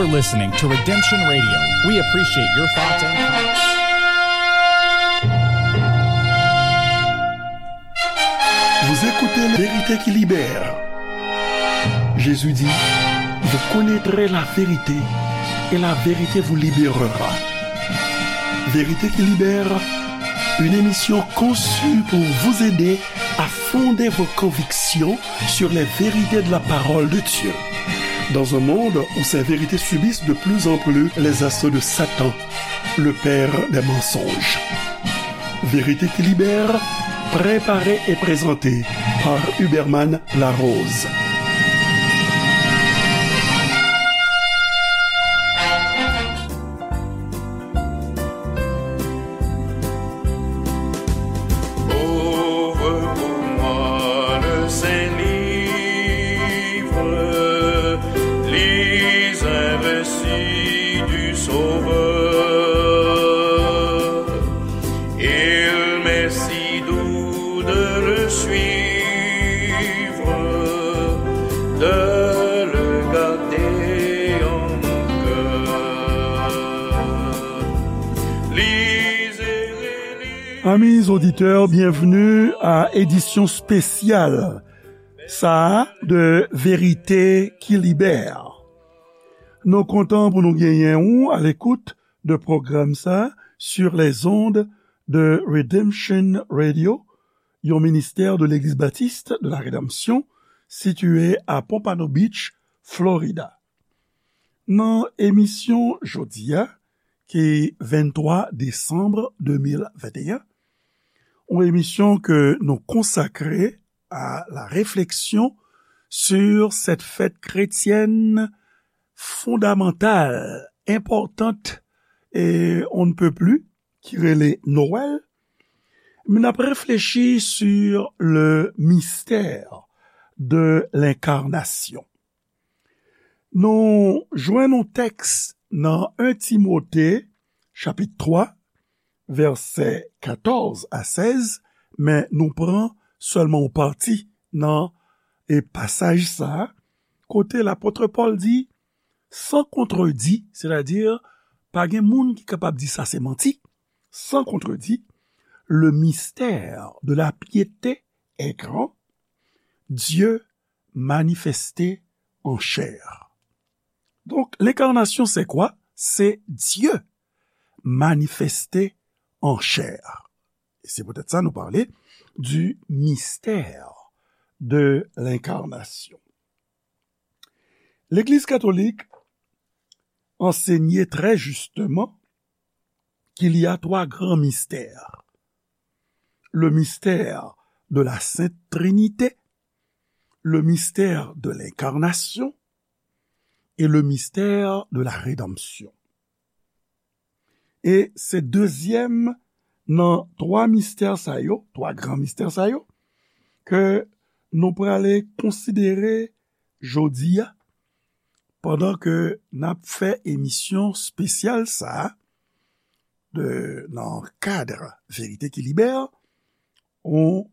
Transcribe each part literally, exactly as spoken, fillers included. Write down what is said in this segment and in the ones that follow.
You're listening to Redemption Radio. We appreciate your thoughts and comments. Vous écoutez La vérité qui libère. Jésus dit, vous connaîtrez la vérité et la vérité vous libérera. Vérité qui libère, une émission conçue pour vous aider à fonder vos convictions sur les vérités de la parole de Dieu. Dans un monde où ces vérités subissent de plus en plus les assauts de Satan, le père des mensonges. Vérité qui libère, préparée et présentée par Huberman Larose. Ouvre pour moi le saint livre, lis un récit du Sauveur. Il m'est si doux de le suivre, de le garder en mon cœur. Lisez, relisez. Amis auditeurs, bienvenue à édition spéciale sa a de Vérité qui libère. Nou kontan pou nou genyen ou à l'écoute de pwogram sa sur les ondes de Redemption Radio, yon ministè de Legliz Batis de la Redanmsyon, sitiye a Pompano Beach, Florida. Nan emisyon jodi a, ki venntwa desanm de mil venteyen, yon emisyon ke nou konsakre à la réflexion sur cette fête chrétienne fondamentale, importante et on ne peut plus, ki rele Nwèl, men n ap reflechi sur le mystère de l'incarnation. Nou jwenn yon tèks nan en Timote, chapit twa, vèsè katòz a sèz, men nou pran sèlman yon pati nan, e, pasaj sa a, kote lapot Pòl di, sans contredit, sètadi, pa gen moun ki kapab di sa se manti, sans contredit, le mystère de la piété est grand, Dieu manifesté en chair. Donc, l'incarnation, c'est quoi? C'est Dieu manifesté en chair. Et c'est peut-être ça, nous parler du mystère de l'incarnation. L'Église catholique enseignait très justement qu'il y a trois grands mystères. Le mystère de la Sainte Trinité, le mystère de l'incarnation et le mystère de la rédemption. E se dezyèm nan twa mistè sa yo, twa gran mistè sa yo, ke nou prale konsidere jodi a, pandan ke n ap fè emisyon espesyal sa a, de, nan kad Verite ki Libè, yon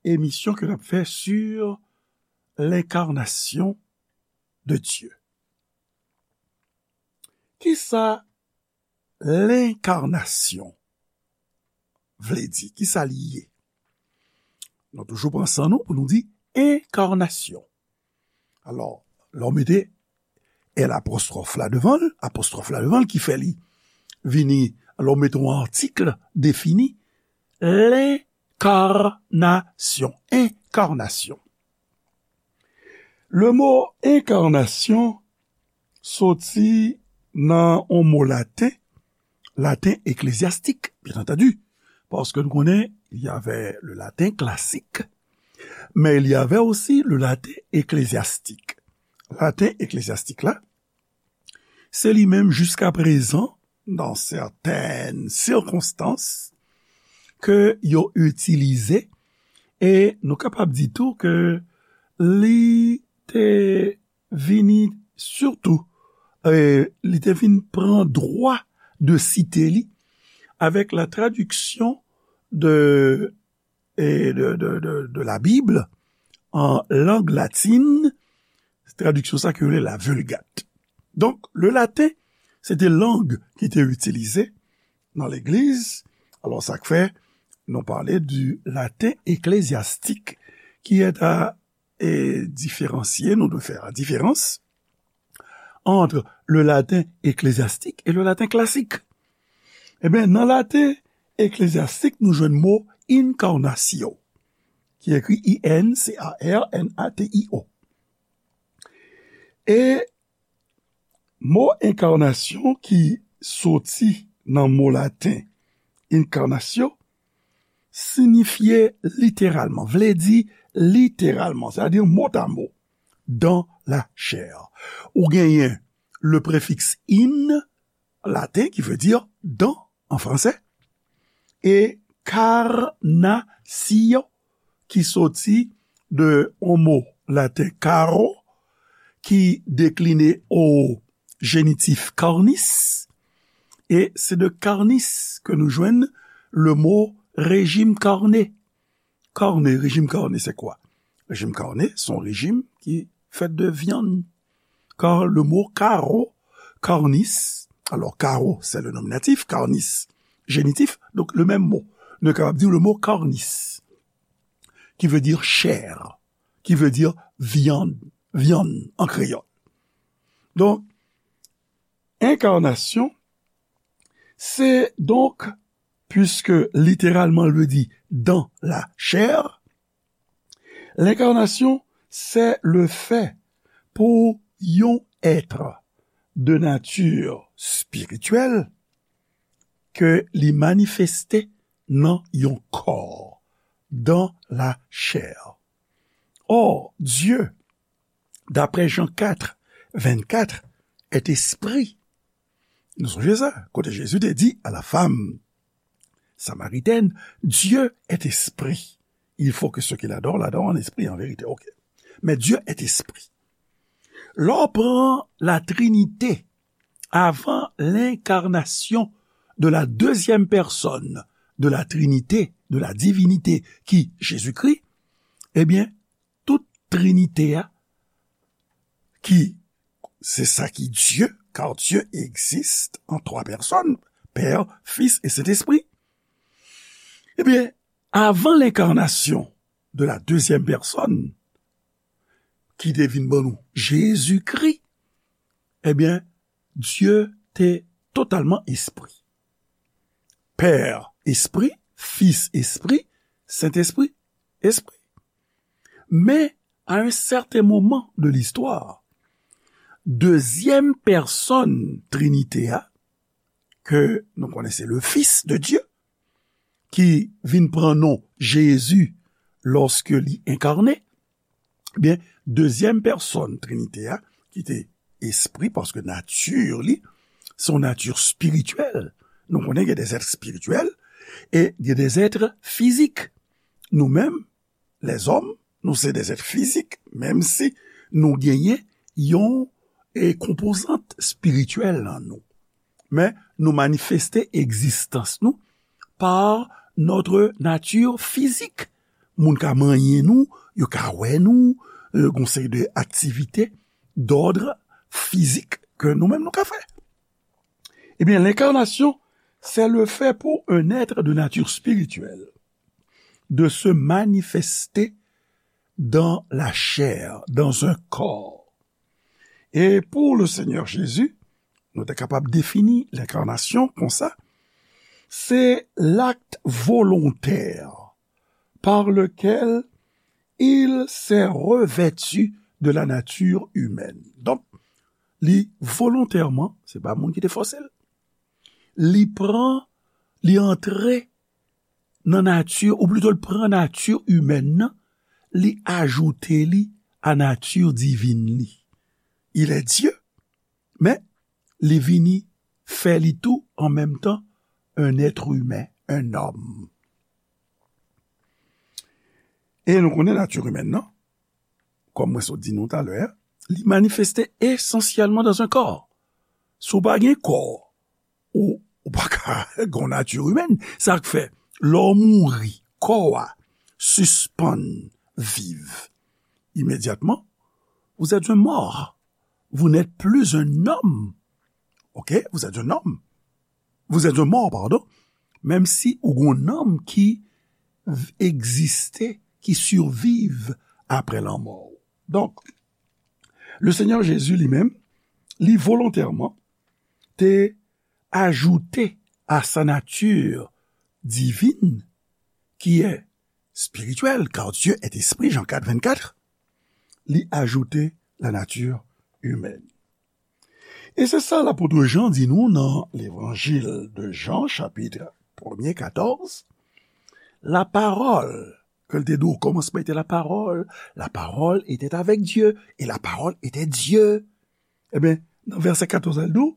emisyon ke n ap fè sur l'incarnation de Dieu. Kisa lenkarnasyon vle di? Kisa li ye? Nou toujou pran san nou pou nou di enkarnasyon. Alò, lè w mete L apostwòf la devan l, apostwòf la devan l ki fè li vini, lè w mete yon atik defini, lenkarnasyon, enkarnasyon. Le mo enkarnasyon soti nan yon mo laten, laten eklezyastik, byen antandi, paske nou konnen, il y avait le latin classique, mais il y avait aussi le latin ecclésiastique. Laten eklezyastik la, se li menm jiska prezan, dans certaines circonstances, ke yo itilize, e nou kapab di tou ke li te vini sitou, e, li te vin pran dwa de site li avec la traduction de, e, de, de, de, de la Bible en langue latine, tradiksyon sa ki rele la Vulgate. Donk, le latin, se te lang ki te itilize nan legliz. Alò, sa k fè nou pale du latin ecclésiastique, qui est à, et différencier, nous devons faire la différence entre le latin ecclésiastique et le latin classique. Ebyen, nan latin eklezyastik, nou jwenn mo incarnatio, ki ekri I N C A R N A T I O. E mo enkarnasyon ki soti nan mo laten incarnatio, siyifye literalman, vle di literalman, sètadi motamo, dans la chair. Ou genyen le prefiks in, laten, ki vle di dans an fransè, e carnatio, ki soti de yon mo laten caro, ki dekline o jenitif carnis, e se de carnis ke nou jwenn le mo rejim karne. Karne, rejim karne, se kwa? Rejim karne, se yon rejim ki fèt de vyann. Car le mot caro, carnis, alors caro, c'est le nominatif, carnis, génitif, donc le même mot. Nou kapab di le mot carnis, qui veut dire chair, qui veut dire viande, viande en créole. Donc, incarnation, c'est donc, puisque littéralement il veut dire dans la chair, l'incarnation, c'est le fait pour yon être de nature spirituelle ke li manifeste nan yon kò, dans la chair. Or, Dieu, d'après Jean quatre, vingt-quatre, est esprit. Nou sonje sa, kote Jezi te di à la femme samaritaine, Dieu est esprit. Il faut que ceux qui l'adorent l'adorent en esprit et en vérité. Ok. Mais Dieu est esprit. Lè w pran la Trinité, avant l'incarnation de la deuxième personne de la Trinité, de la divinité, qui Jésus-Christ, eh bien, tout Trinité a, ki se sa ki Dieu, car Dieu existe en trois personnes, Père, Fils et Saint-Esprit. Ebyen, avan lenkarnasyon de la deuxième personne, ki te vin ban nou Jezikri, ebyen, Dye te totalman espri. Pè espri, Fis espri, Sentespri espri. Men, à un certain moment de l'histoire, dezyèm pèsòn Trinite a, ke nou konnen se le Fils de Dieu, ki vin pran non Jezi lòske li enkarne, ebyen, dezyèm pèsòn Trinite a, ki te espri, paske nati li, se yon nati espirityèl. Nou konnen gen des êtres spirituels e gen des êtres physiques. Nou menm, lèzòm, nou se des êtres physiques, menm si nou genyen yon, e, konpozant espirityèl nan nou. Men nou manifeste egzistans nou par notre nature physique. Moun ka manyen nou, yo ka wè nou, e, gon seri de aktivite d'ordre physique ke nou menm nou ka fè. Ebyen, l'incarnation, c'est le fait pour un être de nature spirituelle de se manifester dans la chair, dans un corps. E pou le Senyè Jezi, nou te kapab defini lenkarnasyon konsa, se l'acte volontaire par lequel il s'est revêtu de la nature humaine. Donk, li volontèman, se pa moun ki te fòse l. Li pran, li antre nan nati, ou plito l pran nati imèn nan, li ajoute li a nati divin li. Il est Dieu, men li vini fè li tou an menm tan un être humain, un homme. E nou konnen nati imèn nan, kòm mwen sot di nou talè a, li manifeste esansyèlman dans un corps. Si w pa gen kò, ou, ou pa ka gen yon nati imèn. Sa k fè, lè w mouri, kò a sispann viv. Imedyatman, vous êtes un mort. Vous n'êtes plus un homme. Ok? Vous êtes un homme. Vous êtes un mort, pardon. Menm si ou gon nanm ki v- egziste, ki siviv apre lanmò. Donk, le Seigneur Jésus li menm, li volontèman te ajoute à sa nature divine, qui est spirituelle, car Dieu est esprit, Jean quatre, vingt-quatre, li ajoute la nature humaine. E se sa lapot Jan di nou nan Levanjil de Jan, chapit premye, katòz, la parole, ke l te di, au commencement était la parole, la parole était avec Dieu, et la parole était Dieu. Ebyen, nan vèsè katòz, al di w,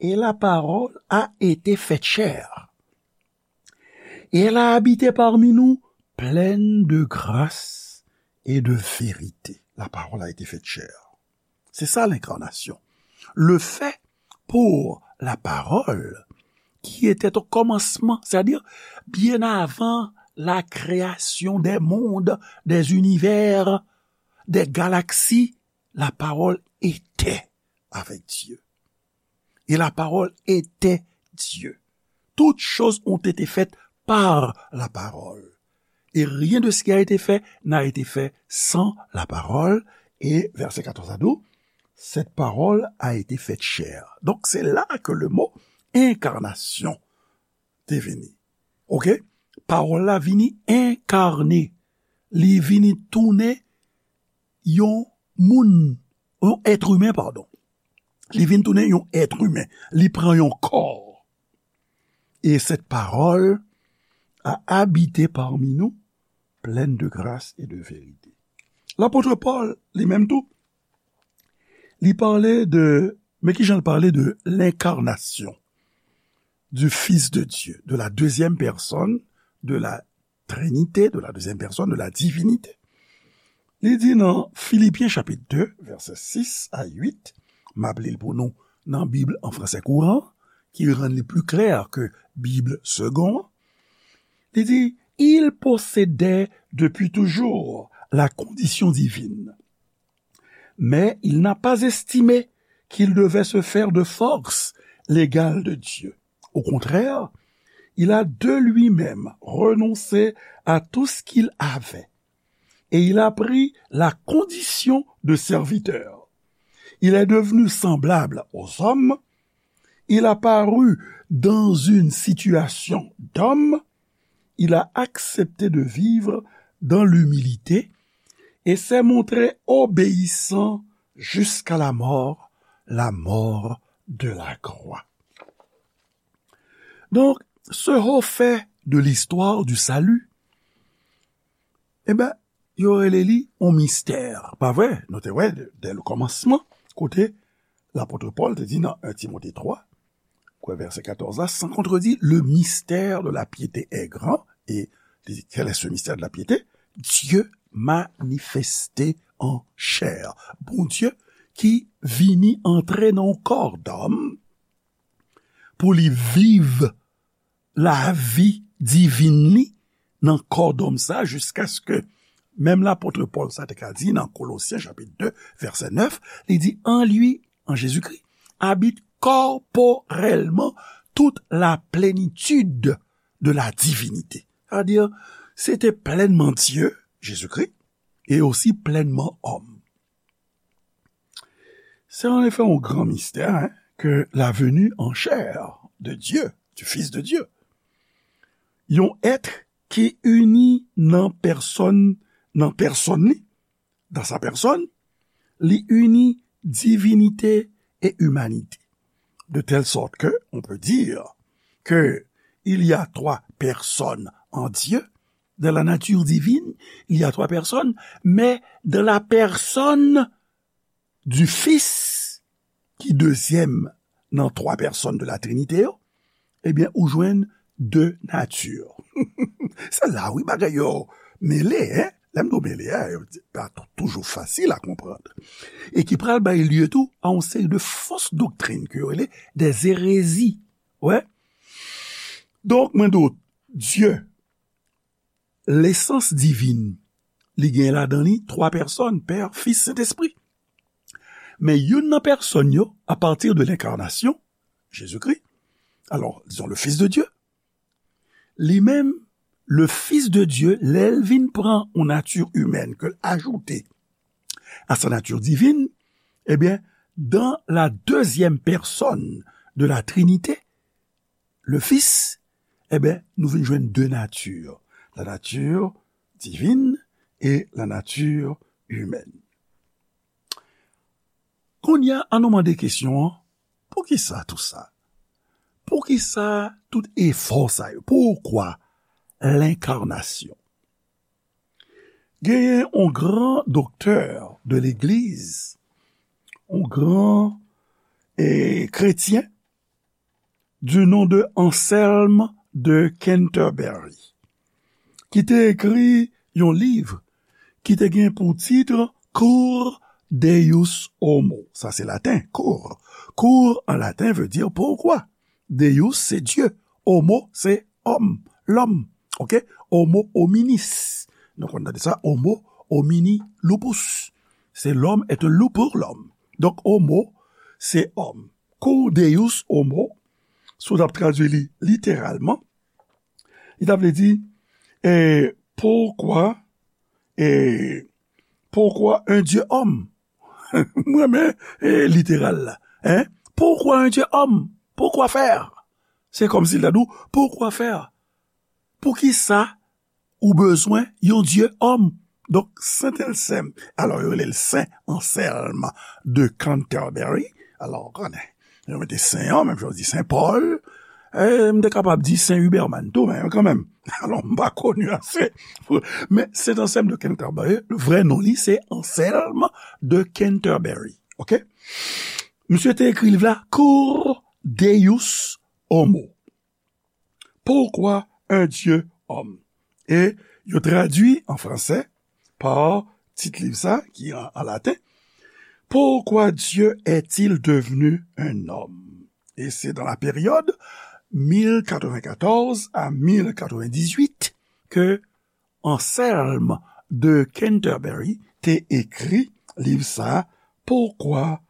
et la parole a été faite chair. Et elle a habité parmi nous, pleine de grâce et de vérité. La parole a été faite chair. C'est ça l'incarnation. Le fait pour la parole, qui était au commencement, c'est-à-dire bien avant la création des mondes, des univers, des galaxies, la parole était avec Dieu. Et la parole était Dieu. Toutes choses ont été faites par la parole. Et rien de ce qui a été fait n'a été fait sans la parole. Et verset quatorze à douze, cette parole a été faite chair. Donc c'est là que le mot incarnation te vini. Ok? Pawòl la vini enkarne. Li vini tounen yon moun, yon èt imen, padon. Li vin tounen yon èt imen. Li pran yon kò. Et cette parole a habité parmi nous, pleine de grâce et de vérité. Lapot Pòl, li menm tou, li pale de, men ki jan l pale de l'incarnation du Fils de Dieu, de la deuxième personne de la Trinité, de la deuxième personne de la divinité. Li di nan Filipyen chapit de, vèsè sis a uit, m ap li l pou nou nan Bib an fransè kouran, ki rann li pli klè ke Bib segon an. Li di, il possédait depuis toujours la condition divine, mais il n'a pas estimé qu'il devait se faire de force l'égal de Dieu. Au contraire, il a de lui-même renoncé à tout ce qu'il avait et il a pris la condition de serviteur. Il est devenu semblable aux hommes, il a paru dans une situation d'homme, il a accepté de vivre dans l'humilité et s'est montré obéissant jusqu'à la mort, la mort de la croix. Donk, ce haut fait de l'histoire du salut, e ben, yo rele li yon mistè, pa vre? Nou te wè, dè le kòmansman, kote lapot Pòl te di nan un Timote twa, kwè vèsè katòz la, sans contredit, le mystère de la piété est grand, et li di, quel est ce mystère de la piété? Dieu manifesté en chair. Bondye ki vini antre nan yon kò dòm pou li viv lavi divin li nan kò dòm sa, jiskaske menm lapot Pòl sa te ka di nan Kolosyen chapit de, vèsè nèf, li di, en lui, en Jésus-Christ, habite corporellement toute la plénitude de la divinité. Sa vle di, se te plènman Dye, Jezikri, e osi plènman òm. Se an efè yon gran mistè, hein, ke la venue en chair de Dieu, du Fils de Dieu. Yon èt ki ini nan pèsòn, nan pèsòn li, dans sa personne, li ini divinité et humanité. De telle sorte que on peut dire que il y a trois personnes en Dieu. Dans la nature divine, il y a trois personnes, mais dans la personne du Fils, ki dezyèm nan twa pèsòn de la Trinité yo, ebyen, ou jwenn de nati. Se la, wi, bagay yo mele, hein? Lè m di w mele, hein, yo pa tou-, toujou fasil a konprann. E ki pral bay lye tou a yon seri de fos doktrin ke yo rele des hérésies. Wè. Donk, mwen di w, Dye, lesans divin, li gen ladan li twa pèsòn, Pè, Fis, Sentespri. Men youn nan pèsòn yo, apati de lenkarnasyon, Jezikri, alò, dizon, le Fils de Dieu, li menm, le Fils de Dieu, lè l vin pran yon nati imèn ke l ajoute à sa nature divine, ebyen, dans la deuxième personne de la Trinité, le Fils, ebyen, nou vin jwenn de nati, la nature divine et la nature humaine. Kounye a, ann nou mande kesyon an, poukisa tou sa? Poukisa tout efò sa yo? Pourquoi l'incarnation? Genyen yon gran doktè de legliz, yon gran eh, kretyen, du nom de Anselme de Canterbury, ki te ekri yon liv ki te gen pou tit Cur Deus Homo. Sa se laten, cur. Cur an laten vle di poukwa. Deus se Dye. Homo se òm, lòm. Ok? Homo hominis. Nou konn tande sa, homo homini lupus. Se l'homme est un loup pour l'homme. Donk, homo se òm. Cur Deus Homo, si w t ap tradui li literalman, li ta vle di, eh, pourquoi, eh, pourquoi un Dieu homme? Mwen renmen eh, literal la. Hein? Pourquoi un Dieu homme? Pourquoi faire? Se kòmsi l ta di w, pourquoi faire? Poukisa ou bezwen yon Dye òm? Donk, Sent Ansèm, alò, yo rele l Sen Ansèlm de Canterbury. Alò, ou konnen, yo mete Sen an, menm jan yo di Sen Pòl. E, m te kapab di Sen Huberman tou, men kanmenm. Alò, m pa koni ase. Men Sent Ansèlm de Canterbury, vrè non li, se Ansèlm de Canterbury. Ok? Misye te ekri liv la, Cur Deus Homo. Pourquoi un Dieu homme? E yo tradui an fransè pa tit liv sa, ki an, an laten, Pourquoi Dieu est-il devenu un homme? E se dans la période mil katrevennkatòz a mil katrevendizuit ke Anselme de Canterbury te ekri liv sa, Pourquoi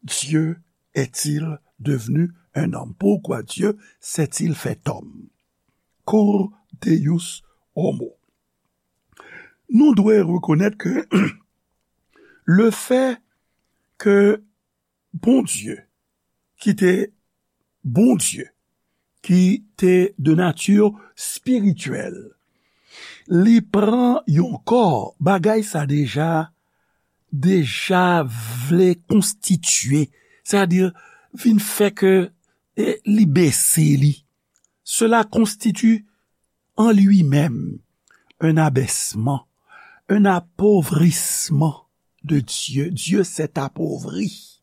Dieu est-il devenu un homme? Pourquoi Dieu s'est-il fait homme? Cur Deus Homo. Nou dwe rekonèt ke le fait que Bondye, ki te Bondye, ki te de nati espirityèl, li pran yon kò, bagay sa deja, deja vle konstitye, sètadi vin fè ke, e, li bese li. Cela constitue en lui-même un abaissement, un appauvrissement de Dieu. Dieu s'est appauvri.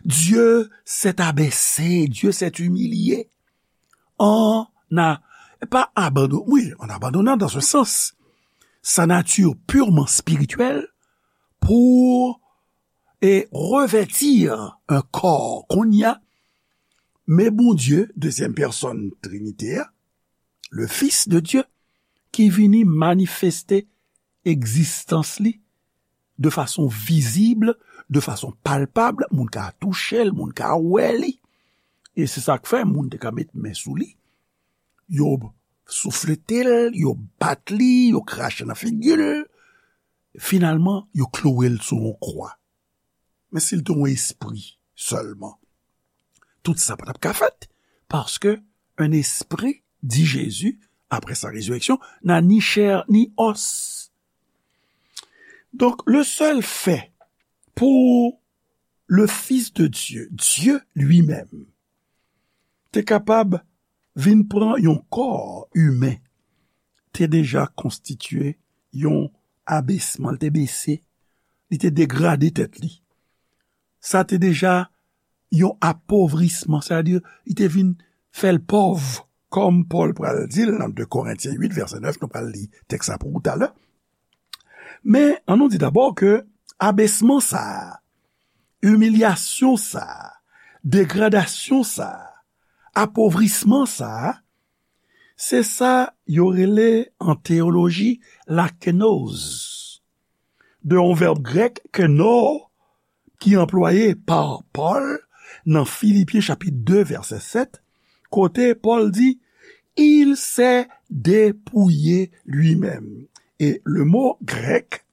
Dieu s'est abaissé. Dieu s'est humilié. En a, pas abandonné, oui, en abandonnant dans un sens sa nature purement spirituelle pour et revêtir un corps kounye a, men Bondye, dezyèm pèsòn Trinite a, le Fils de Dieu, ki vini manifeste egzistans li de fason vizib, de fason palpab, moun ka touche l, moun ka wè li. E se sa k fè moun te ka met men sou li, yo souflete l, yo bat li, yo krache nan figi l. Finalman, yo kloure l sou yon kwa. Men si l te yon espri sèlman, tout sa pa t ap ka fèt, paske un esprit, dit Jésus, après sa résurrection, n'a ni chair ni os. Donk, le sèl fè pou le Fils de Dieu, Dieu lui-même, te kapab vin pran yon kò imen, te deja konstitye yon abesman, li te bese, li te degrade tèt li. Sa te deja yon apovrisman, sètadi li te vin fè l pòv, kòm Pòl pral di l nan de Korentyen uit, vèsè nèf, nou pral li tèks sa pou ou talè. Men, an nou di dabò ke abesman sa a, imilyasyon sa a, degradasyon sa a, apovrisman sa a, se sa yo rele an teyoloji la kenoz, de yon vèb grèk keno, ki anplwaye pa Pòl nan Filipyen chapit de vèsè sèt, kote Pòl di, Il s'est dépouillé lui-même. E le mo grèk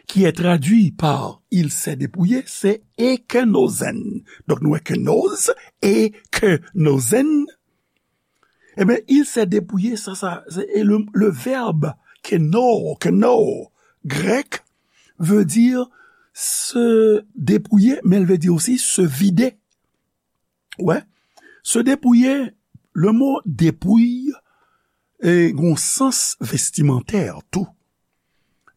qui est traduit par il s'est dépouillé, se ekenozen. Donk nou wè kenoz, ekenozen. Ebyen, il s'est dépouillé, sa, sa, se, e le, le verbe keno, keno, grèk, veut dire se dépouiller, men l vle di osi se vide. Wè, se depouye, le mo depouy, e, gon sans vestimantè tou.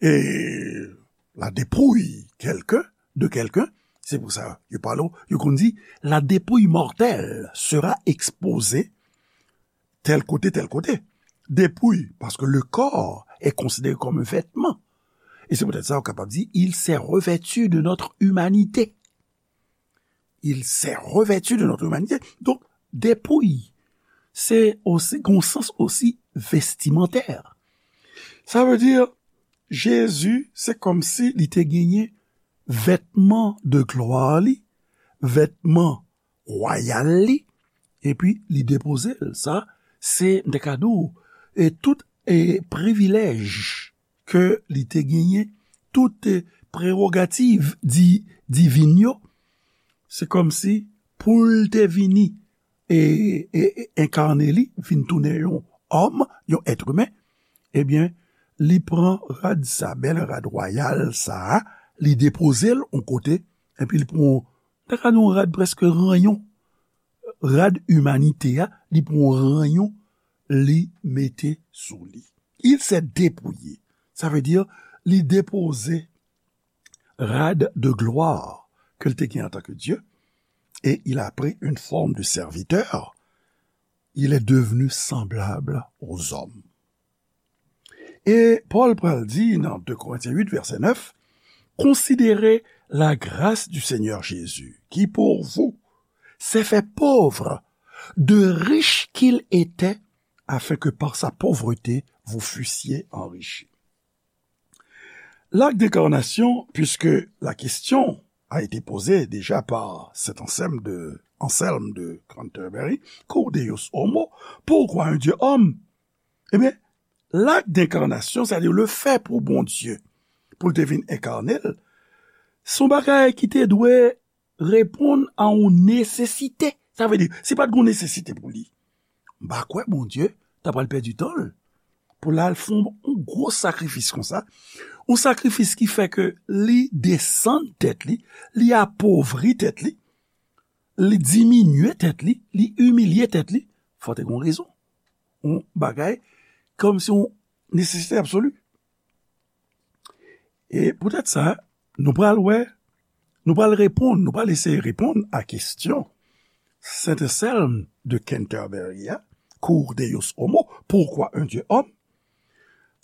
E, la dépouille quelqu'un, de quelqu'un, se pou sa, yo pale, yo konn di, la dépouille mortelle sera exposée tel côté, tel côté. Dépouille, parce que le corps est considéré comme un vêtement. E se poutèt sa, ou kapab di, il s'est revêtu de notre humanité. Il s'est revêtu de notre humanité. Donk, depouy, se osi, gon sans osi vestimantè. Sa vle di, Jezi, se kòmsi li te genyen vètman de glwa li, vètman wayal li, epi li depoze l. Sa, se, m te ka di w, e tout, e privilèj ke li te genyen, tout, e prewogativ di, divin yo, se kòmsi pou l te vini e, e, e enkane li, vin tounen yon òm, yon èt imen, ebyen, li pran rad sa, bèl rad wayal sa a, li depoze l yon kote, epi li pran, ta ka di yon rad prèske ranyon, rad imanite a, li pran ranyon, li mete sou li. Il s'est dépouillé. Sa vle di, li depoze rad de gloire ke l te gen antanke Dye, et il a pris une forme de serviteur. Il est devenu semblable aux hommes. E Pòl pral di nan de Korentyen uit, vèsè nèf, Considérez la grâce du Seigneur Jésus, qui pour vous s'est fait pauvre, de riche qu'il était, afin que par sa pauvreté vous fussiez enrichis. L'acte d'incarnation, puisque la question a été posée déjà par cet Anselme de, Anselme de Canterbury, Cur Deus homo, pourquoi un Dieu homme? Ebyen, l'acte d'incarnation, c'est-à-dire le fait pou Bondye, pou l te vin enkane l, se yon bagay ki te dwe reponn a yon nesesite. Sa vle di, si pa t gen yon nesesite pou li, m pa kwè Bondye ta pral pèdi tan l pou l al fè yon gwo sakrifis konsa. Yon sakrifis ki fè ke li desann tèt li, li apovri tèt li, li diminye tèt li, li imilye tèt li. Fò te gen yon rezon. Yon bagay kòmsi yon nesesite absoli. E poutèt sa, nou pral wè, nou pral reponn, nou pral eseye reponn a kesyon Sent Anselm de Canterbury a, Cur Deus homo, pourquoi un Dieu homme?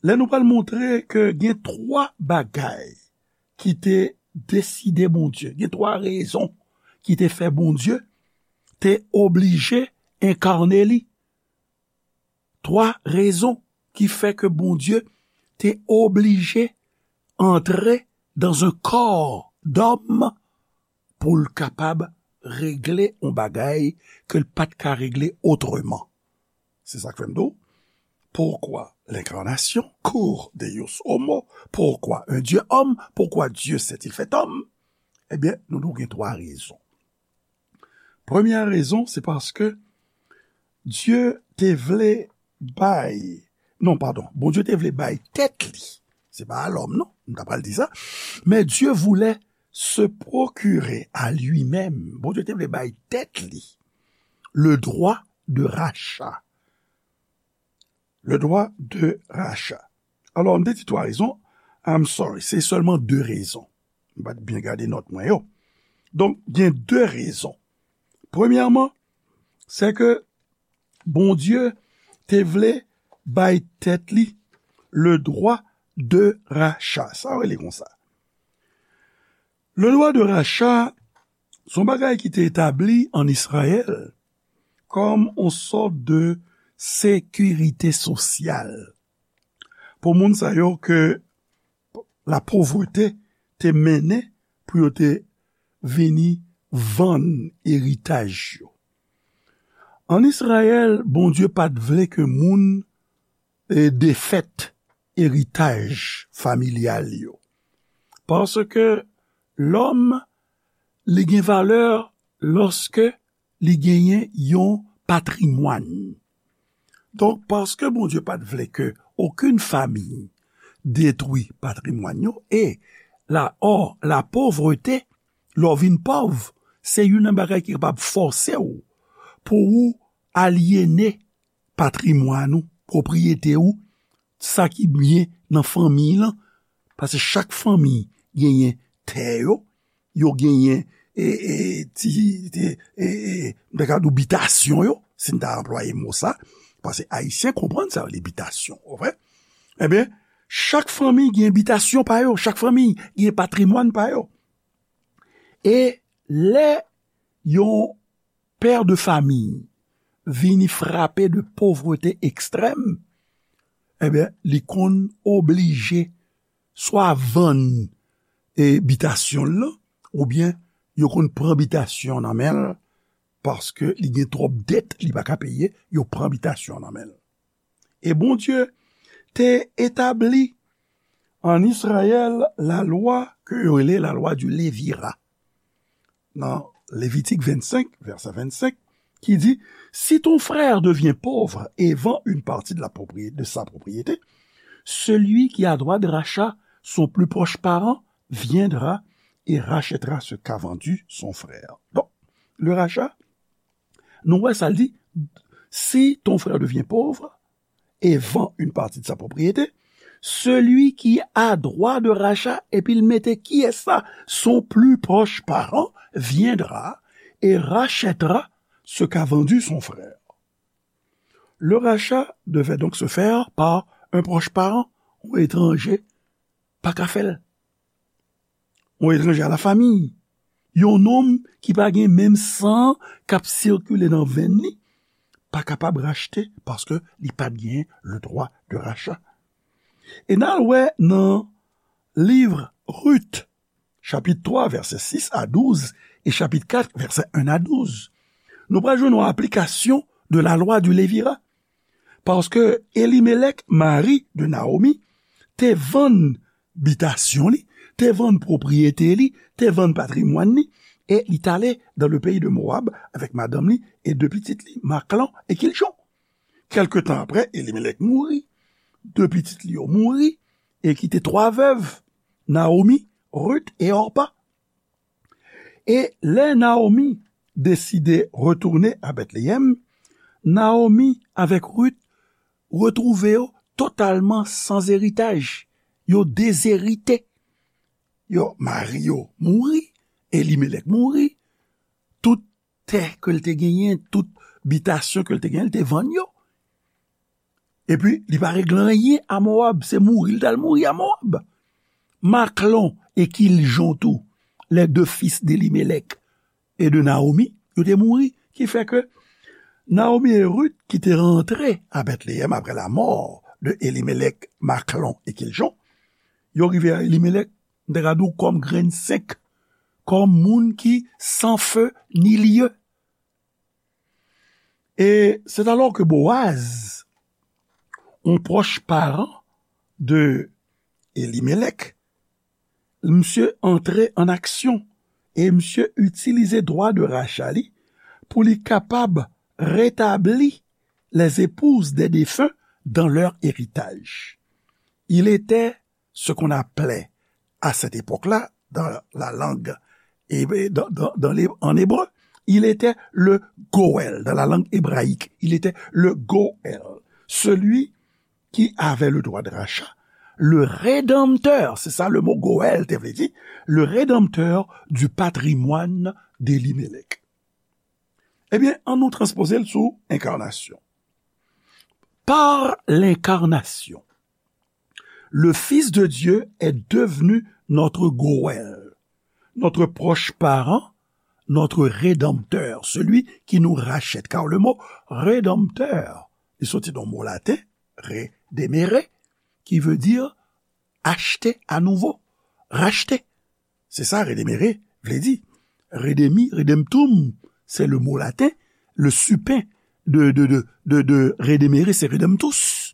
Lè nou pral montre ke gen twa bagay ki te deside Bondye, gen twa rezon ki te fè Bondye te oblije enkane li. Twa rezon ki fè ke Bondye te oblije antre dans un corps d'homme pou l kapab regle yon bagay ke l pa t ka regle otreman. Se sa k fè m di w, pourquoi l'incarnation, cur Deus homo, pourquoi un Dieu homme, pourquoi Dieu s'est-il fait homme? Ebyen, nou di w gen twa rezon. Premyè rezon, se paske Dye te vle bay, non, padon, Bondye te vle bay tèt li, se pa a lòm, non, m ta pral di sa, mais Dieu voulait se procurer à lui-même, Bondye te vle bay tèt li, le droit de rachat. Le droit de rachat. Alò, m te di twa rezon. I'm sorry, se sèlman de rezon. M pa t byen gade nòt mwen yo. Donk, gen de rezon. Premyèman, se ke Bondye te vle bay tèt li le droit de rachat. Sa rele konsa. Le droit de rachat, se yon bagay ki te etabli an Izrayèl kòm yon sòt de sekirite sosyal pou moun sa yo ke lapovrete te mennen pou yo te vini vann eritaj yo. An Izrayèl, Bondye pa t vle ke moun e, defèt eritaj familyal yo. Paske lòm, li gen valè lòske li genyen yon patrimwàn. Donk, paske Bondye pa t vle ke okenn fanmi detwi patrimwàn yo, e la, ò, la pauvreté, lè w vin pòv, se youn nan bagay ki kapab fòse w pou ou alyene patrimwàn ou, pwopriyete ou, sa ki byen nan fanmi lan, paske chak fanmi genyen tè yo, yo genyen, e, e, ti, ti, e, e, m ta ka di w bitasyon yo, si n ta anplwaye mo sa, paske Ayisyen konprann sa yo rele bitasyon, w konprann? Ebyen, chak fanmi gen bitasyon pa yo, chak fanmi gen patrimwàn pa yo. E lè yon pè de fanmi vini frape de povrete ekstrèm, ebyen, li konn oblije swa vann, e, bitasyon l lan, oubyen yo konn pran bitasyon nan men l, paske li gen twòp dèt li pa ka peye, yo pran bitasyon nan men l. E Bondye te etabli an Izrayèl lalwa ke yo rele lalwa di levira. Nan Levitik vennsenk, vèsè vennsenk, ki di, si ton frère devient pauvre et vend une partie de la propriété, de sa propriété, celui qui a droit de rachat, son plus proche parent, viendra et rachètera ce qu'a vendu son frère. Donk, le rachat, nou wè sa l di, si ton frère devient pauvre et vend une partie de sa propriété, celui qui a droit de rachat, epi l mete kiyès sa, son plus proche parent viendra et rachètera ce qu'a vendu son frère. Le rachat devait donc se faire par un proche parent, yon etranje pa ka fè l. Yon etranje a la famiy. Yon nonm ki pa gen menm san k ap sikile nan venn li pa kapab rachte paske li pa t gen le droit de rachat. E n al wè nan liv Rit, chapit twa, vèsè sis a douz, e chapit kat, vèsè en a douz. Nou pral jwenn yon aplikasyon de la loi du Lévira. Paske Elimelèk, mari de Naomi, te vann bitasyon li, te vann pwopriyete li, te vann patrimwàn li, e li t ale dans le pays de Moab avèk madanm li e de pitit li, Maklon e Kiljon. Kèlke tan apre, Elimelèk mouri. De pitit li yo mouri e kite twa vèv, Naomi, Rit e Òpa. E lè Naomi deside retounen a Bètleyèm, Naomi avèk Rit retwouve yo totalman san eritaj. Yo dezerite. Yo, mari yo mouri, Elimelèk mouri, tout tè ke l te genyen, tout bitasyon ke l te genyen, l te vann yo. Epi, li pa regle anyen a Moab, se mouri l t al mouri a Moab. Maklon e Kiljon tou, les deux fils d'Elimelèk e de Naomi, yo te mouri, ki fè ke Naomi e Rit ki te rantre a Bètleyèm apre la mort de Elimelèk, Maklon e Kiljon, yo rive a Elimelèk, m te ka di w kòm grenn senk, kòm moun ki san feu ni lieu. E c'est alors que Boaz, yon pwòch paran de Elimelèk, misye antre an aksyon e misye itilize dwa de racha li pou li kapab retabli les épouses des défunts dans leur héritage. Il était ce qu'on appelait à cette époque-là, dans la langue, dans, dans, dans les, en hébreu, il était le Goël, dans la langue hébraïque, il était le Goël, celui qui avait le droit de rachat, le rédempteur, c'est ça le mot Goël te vle di, le rédempteur du patrimoine d'Elimelèk. Ebyen, ann nou transpoze l sou enkarnasyon. Par l'incarnation, le Fils de Dieu est devenu notre Goël, notre proche parent, notre rédempteur, celui qui nous rachète. Car le mot rédempteur, li soti nan mo laten, redemere, ki vle di achte anouvo, rachte. Se sa, redemere vle di. Redemi, redemptum, c'est le mot latin, le supin de, de, de, de, de redemere, c'est redemptus.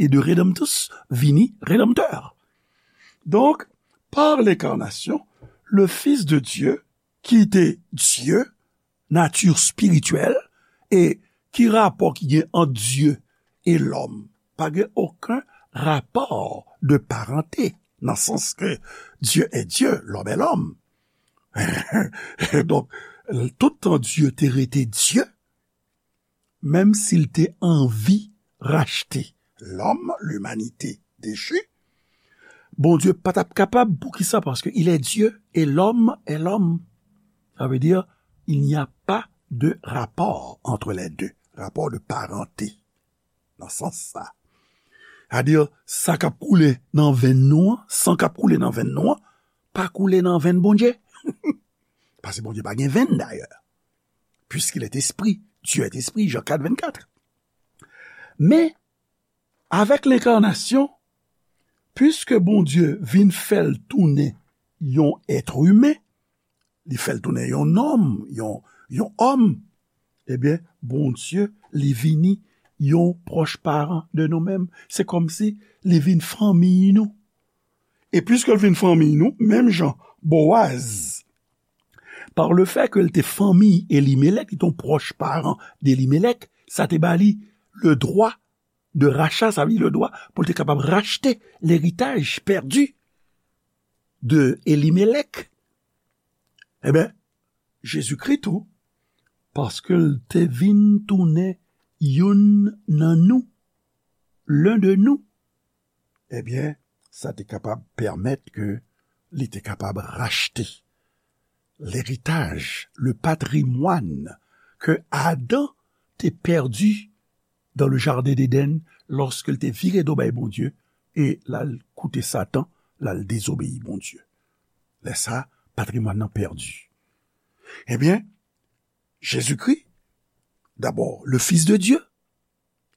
E de redemptus vini redanmtè. Donk, par lenkarnasyon, le Fils de Dieu, ki te Dye, nati espirityèl, e ki rapò ki gen ant Dye e lòm? Pa gen okenn rapò de parante, nan sans ke Dieu est Dieu, l'homme est l'homme. Donk, toutan Dye te rete Dye, menm si l te anvi rachte lòm, limanite dechi, Bondye pa t ap kapab. Poukisa? Paske il est Dieu et l'homme est l'homme. Sa vle di, il n'y a pas de rapport entre les deux. Rapò de parante, nan sans sa. Sa di, sa k ap koule nan venn nou an, san k ap koule nan venn nou an, pa koule nan venn Bondye. Paske Bondye pa gen venn dayè. Puisqu'il est esprit, Dieu est esprit, Jean quatre, vingt-quatre. Men, avèk lenkarnasyon, puiske Bondye vin fè l tounen yon èt imen, li fè l tounen yon nonm, yon, yon òm, ebyen, Bondye, li vini yon pwòch paran de nou menm. Se kòmsi li vin fanmi nou. E puiske l vin fanmi nou, menm jan Boaz, par le fait ke l te fanmi Elimelèk, li te yon pwòch paran de Elimelèk, sa te ba li le droit de rachat, sa vle di le droit pou l te kapab rachte leritaj pèdi de Elimelèk. Ebyen, Jezikri tou, paske l te vin tounen youn nan nou, l'un de nous, ebyen, sa te kapab pèmèt ke li te kapab rachte leritaj, le patrimwàn ke Adan te pèdi dans le jardin d'Éden, lòske l te vire do bay Bondye e l al koute Satan, l al dezobeyi Bondye. Lè sa, patrimwàn nan pèdi. Ebyen, Jezikri, dabò, le Fils de Dieu,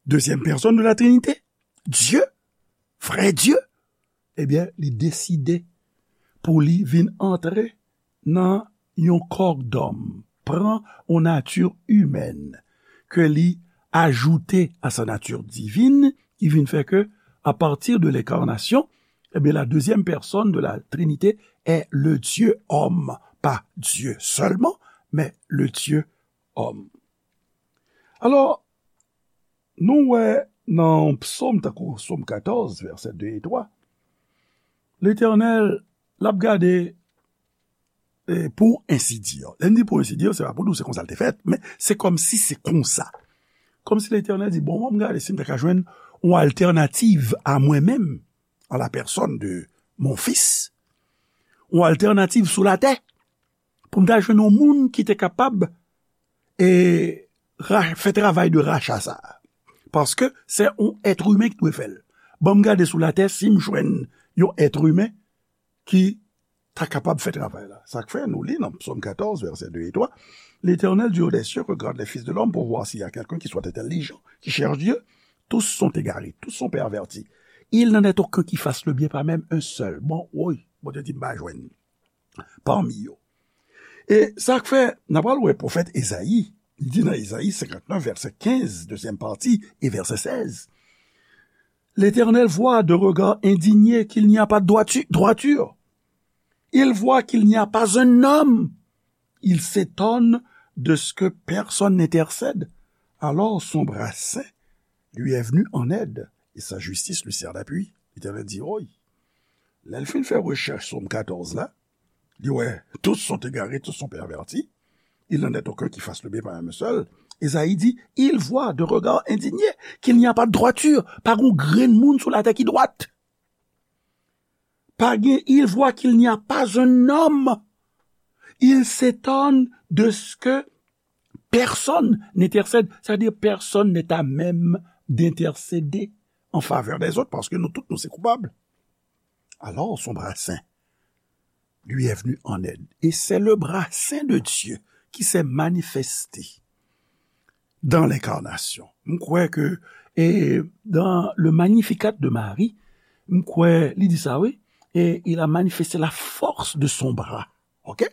deuxième personne de la Trinité, Dye, vrè Dye, ebyen, li deside pou li vin antre nan yon kò dòm, pran yon nati imèn, ke li ajoute à sa nature divine, ki vin fè ke, à partir de l'incarnation, eh bien, la deuxième personne de la Trinité est le Dieu homme, pas Dieu seulement, mais le Dieu homme. Alò, nou wè nan Psaume, tankou Psaume quatorze, verset deux et trois, Letènèl, l ap gade, e, pour ainsi dire. Lè m di pour ainsi dire, se pa pou di w se konsa l te fèt, men se kòmsi se konsa. Kòmsi Letènèl di, bon, m ap gade si m ta ka jwenn yon altènativ a mwen menm, en la personne de mon fils, yon altènativ sou latè, pou m ta jwenn yon moun ki te kapab, e, ra-, fè travay de racha sa a. Paske se yon èt imen ki dwe fè l. Ban m gade sou latè si m jwenn yon èt imen ki ta kapab fè travay la. Sa k fè nou li nan Psaume quatorze, verset deux et trois, L'Éternel du haut des cieux regarde les fils de l'homme pour voir s'il y a quelqu'un qui soit intelligent, qui cherche Dieu. Tous sont égarés, tous sont pervertis. Il n'en est aucun qui fasse le bien, pas même un seul. Bon, woy, Bondye di m pa jwenn parmi yo. E sa k fè, n a pral wè pwofèt Ezayi, li di nan Ezayi cinquante-neuf, verset quinze, deuxième partie, et verset seize, L'Éternel voit d'un regard indigné qu'il n'y a pas de droitu-, droiture. Il voit qu'il n'y a pas un homme. Il s'étonne de ce que personne n'intercède. Alors son bras saint lui est venu en aide, et sa justice lui sert d'appui. Letènèl di, woy, lè l fin fè rechèch Sòm katòz la, li wè, tous sont égarés, tous sont pervertis. Il n'en est aucun qui fasse le bien, pas même un seul. Ezayi di, il voit d'un regard indigné qu'il n'y a pas de droiture. Pa gen yon grenn moun sou latè ki dwat. Pa gen, il voit qu'il n'y a pas un homme. Il s'étonne de ce que personne n'intercède. C'est-à-dire, personne n'est à même d'intercéder en faveur des autres, paske nou tout, nou se koupab. Alors, son bras saint lui est venu en aide. Et c'est le bras saint de Dieu qui s'est manifesté dans l'incarnation. M kwè ke, e, dans le Magnificat de Marie, m kwè li di sa, wi. et il a manifesté la force de son bras. Ok?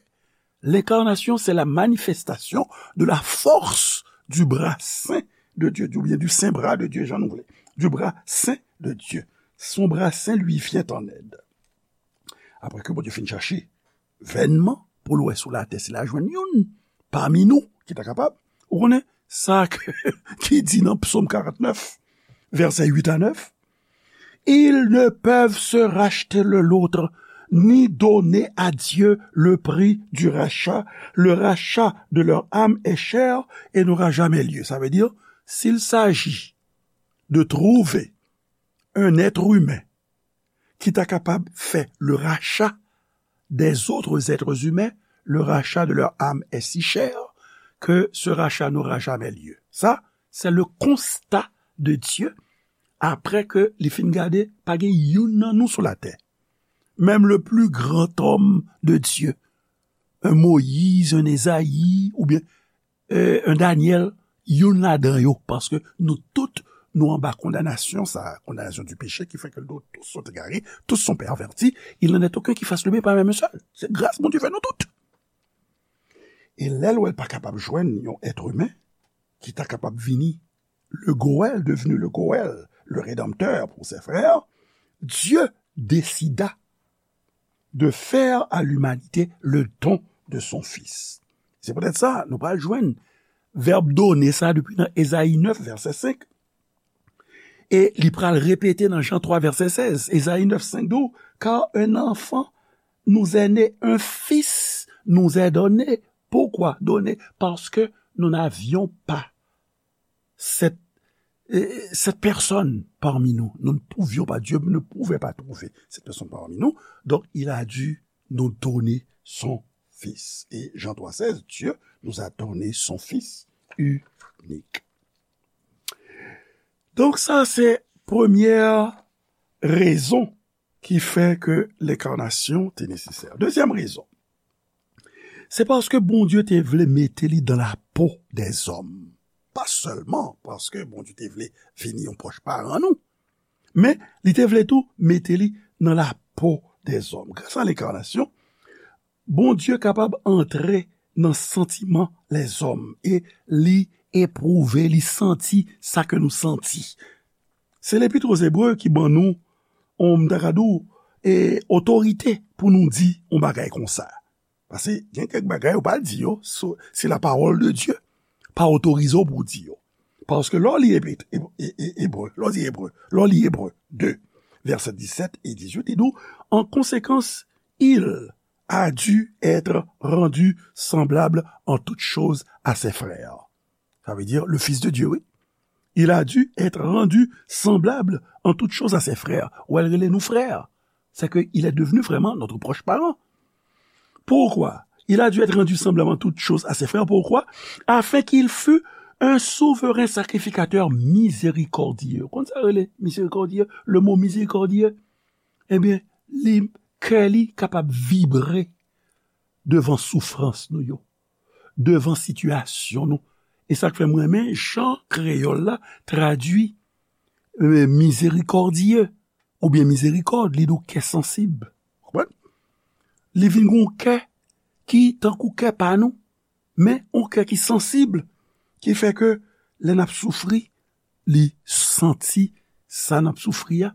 L'incarnation, c'est la manifestation de la force du bras saint de Dieu, ou bien du saint bras de Dieu, jan nou vle. Du bras saint de Dieu. Son bras saint lui vient en aide. Apre ke Bondye fin chache vènman pou l wè sou latè si l a jwenn youn pami nou ki ta kapab. Ou konnen sa ke, ki di nan Psaume quarante-neuf, versets huit à neuf, Ils ne peuvent se racheter l'un l'autre, ni donner à Dieu le prix du rachat. Le rachat de leur âme est cher et n'aura jamais lieu. Ça veut dire, s'il s'agit de trouver un être humain ki ta kapab fè le rachat des autres êtres humains, le rachat de leur âme est si cher que ce rachat n'aura jamais lieu. Ça, c'est le constat de Dieu après que li fin gade, pa gen youn nan nou sou latè. Même le plus grand homme de Dieu, un Moïse, un Ésaïe, ou bien euh, un Daniel, youn ladan yo, paske nou tout, nou anba kondanasyon sa, condamnation du péché, qui fait que nous tous sont égarés, tous sont pervertis, il n'en est aucun qui fasse le bien, pas même un seul. C'est grâce, Bondye fè nou tout. E lè l wè l pa kapab jwenn yon être humain ki ta kapab vini le Goël, devenu le Goël, le Rédempteur pour ses frères, Dieu décida de faire à l'humanité le don de son Fils. Se poutèt sa, nou pral jwenn vèb donner sa depi nan Ezayi neuf, vèsè senk. E li pral repete nan Jan twa, vèsè sèz. Ezayi neuf, senk di w, Car un enfant nous est né, un fils nous est donné. Pourquoi donner? Parce que nous n'avions pas cette, euh, cette personne parmi nous. Nous ne pouvions pas, Dieu ne pouvait pas trouver cette personne parmi nous. Donc, il a dû nous donner son Fils. Et Jean trois seize, Dieu nous a donné son Fils unique. Donc, ça, c'est première raison ki fè ke lenkarnasyon te nesesè. Dezyèm rezon, se paske Bondye te vle mete li dan lapo dèzòm. Pa sèlman paske Bondye te vle vini yon pwòch paran nou, men li te vle tou mete li nan lapo dèzòm. Gras a lenkarnasyon, Bondye kapab antre nan santiman lèzòm e li epwouve, li santi sa ke nou santi. Se Lepit o Zebre ki ban nou, on, m ta ka di w, e, otorite pou nou di on bagay konsa. Paske gen kèk bagay ou pa di yo, so, se la parole de Dieu. Pa otorize w pou w di yo. Paske lè w li Epit, e, e, e, Ebre, lè w li Ebre, lè w li Ebre de, vèsè disèt e dizuit, li di w, En conséquence, il a dû être rendu semblable en toutes choses à ses frères. Ça veut dire le Fils de Dieu, oui. Il a dû être rendu semblable en toutes choses à ses frères. Ou wè l rele nou frè. C'est que il est devenu vraiment notre proche parent. Pourquoi? Il a dû être rendu semblable en toutes choses à ses frères. Pourquoi? Afin qu'il fût un souverain sacrificateur miséricordieux. Konn sa rele miséricordieux? Le mot miséricordieux, ebyen, li, kè li kapab vibre devan soufrans nou yo, devan sitiyasyon nou. E sa k fè m renmen jan kreyòl la tradui, euh, miséricordieux oubyen mizerikòd, li di w kè sansib. Konprann? Li vin gen yon kè ki tankou kè pa nou, men yon kè ki sansib, ki fè ke lè n ap soufri, li santi sa n ap soufri a.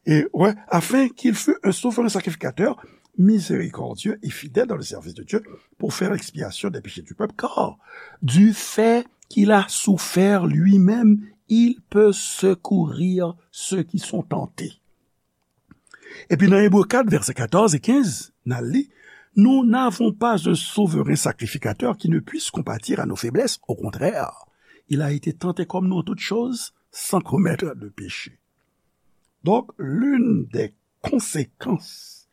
Et ouais, afin qu'il fût un souverain sacrificateur miséricordieux et fidèle dans le service de Dieu pour faire expiation des péchés du peuple, car du fait qu'il a souffert lui-même, il peut secourir ceux qui sont tentés. Epi nan Ebre kat, vèsè katòz e kenz, n al li, Nous n'avons pas un souverain sacrificateur qui ne puisse compatir à nos faiblesses. Au contraire, il a été tenté comme nous en toutes choses, sans commettre de péché. Donc, l'une des conséquences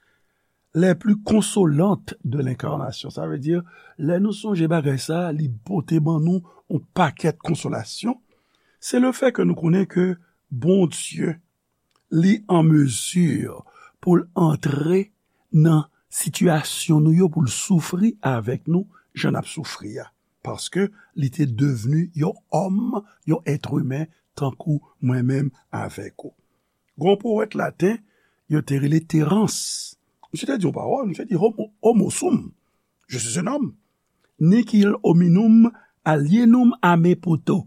les plus consolantes de l'incarnation, sa vle di, lè nou sonje bagay sa, li pote ban nou yon pakèt konsolasyon, se le fè ke nou konnen ke Bondye li an mezi pou l antre nan sitiyasyon nou yo, pou l soufri avèk nou, jan n ap soufri a. Paske li te devni yon òm, yon èt imen, tankou mwen menm avèk ou. Gon powèt laten, yo te rele Terans. Misye te di yon pawòl, misye di, "Homo, homo sum, je suis un homme. Nihil hominum alienum a me puto.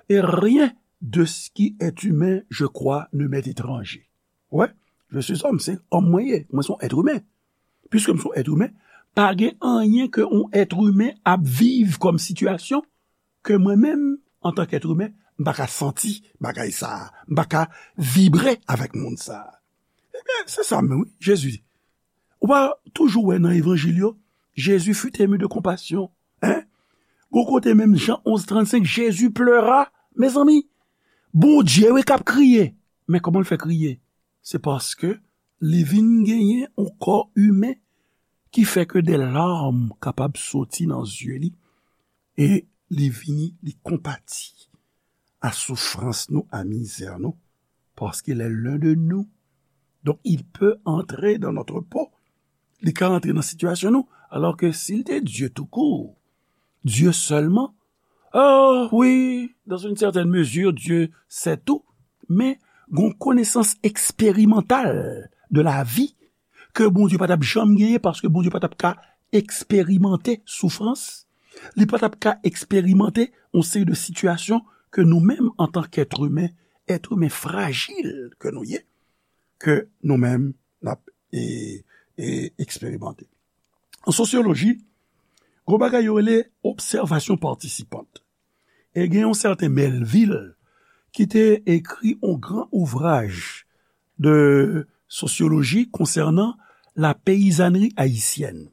Et rien de ce qui est humain, je crois, ne m'est étranger." Wè, je suis homme, se òm mwen ye, mwen se yon èt imen. Piske m se yon èt imen, pa gen anyen ke yon èt imen ap viv kòm sitiyasyon ke mwen menm, antan k èt imen, m pa ka santi bagay sa a, m pa ka vibre avèk moun sa a. Ebyen, se sa menm, wi, Jezi. Ou pa toujou wè nan evanjil yo, Jésus fut ému de compassion, hein? Gon kote menm, Jan onz trannsenk, Jésus pleura. Mezanmi, Bondye, wi, k ap kriye. Men kòman l fè kriye? Se paske li vin genyen yon kò imen ki fè ke de larm kapab soti nan zye li, e li vini, li konpati a soufrans nou, a mizè nou, paske il est l'un de nous. Donc, il peut entrer dans notre peau. Li ka antre nan sitiyasyon nou. Alors que s'il était Dieu tout court, Dieu seulement, oh oui, dans une certaine mesure, Dieu sait tout. Men gon konesans eksperimantal de la vie ke Bondye pa t ap janm genyen, paske Bondye pa t ap ka eksperimante soufrans, li pa t ap ka eksperimante yon seri de sitiyasyon ke nou menm, antan k èt imen, èt imen frajil ke nou ye, ke nou menm n ap, e, e, eksperimante. An sosyoloji, gon bagay yo rele obsèvasyon patisipant. E gen yon sèten Melville ki te ekri yon gran ouvraj de sosyoloji konsènan la peyizanri ayisyèn.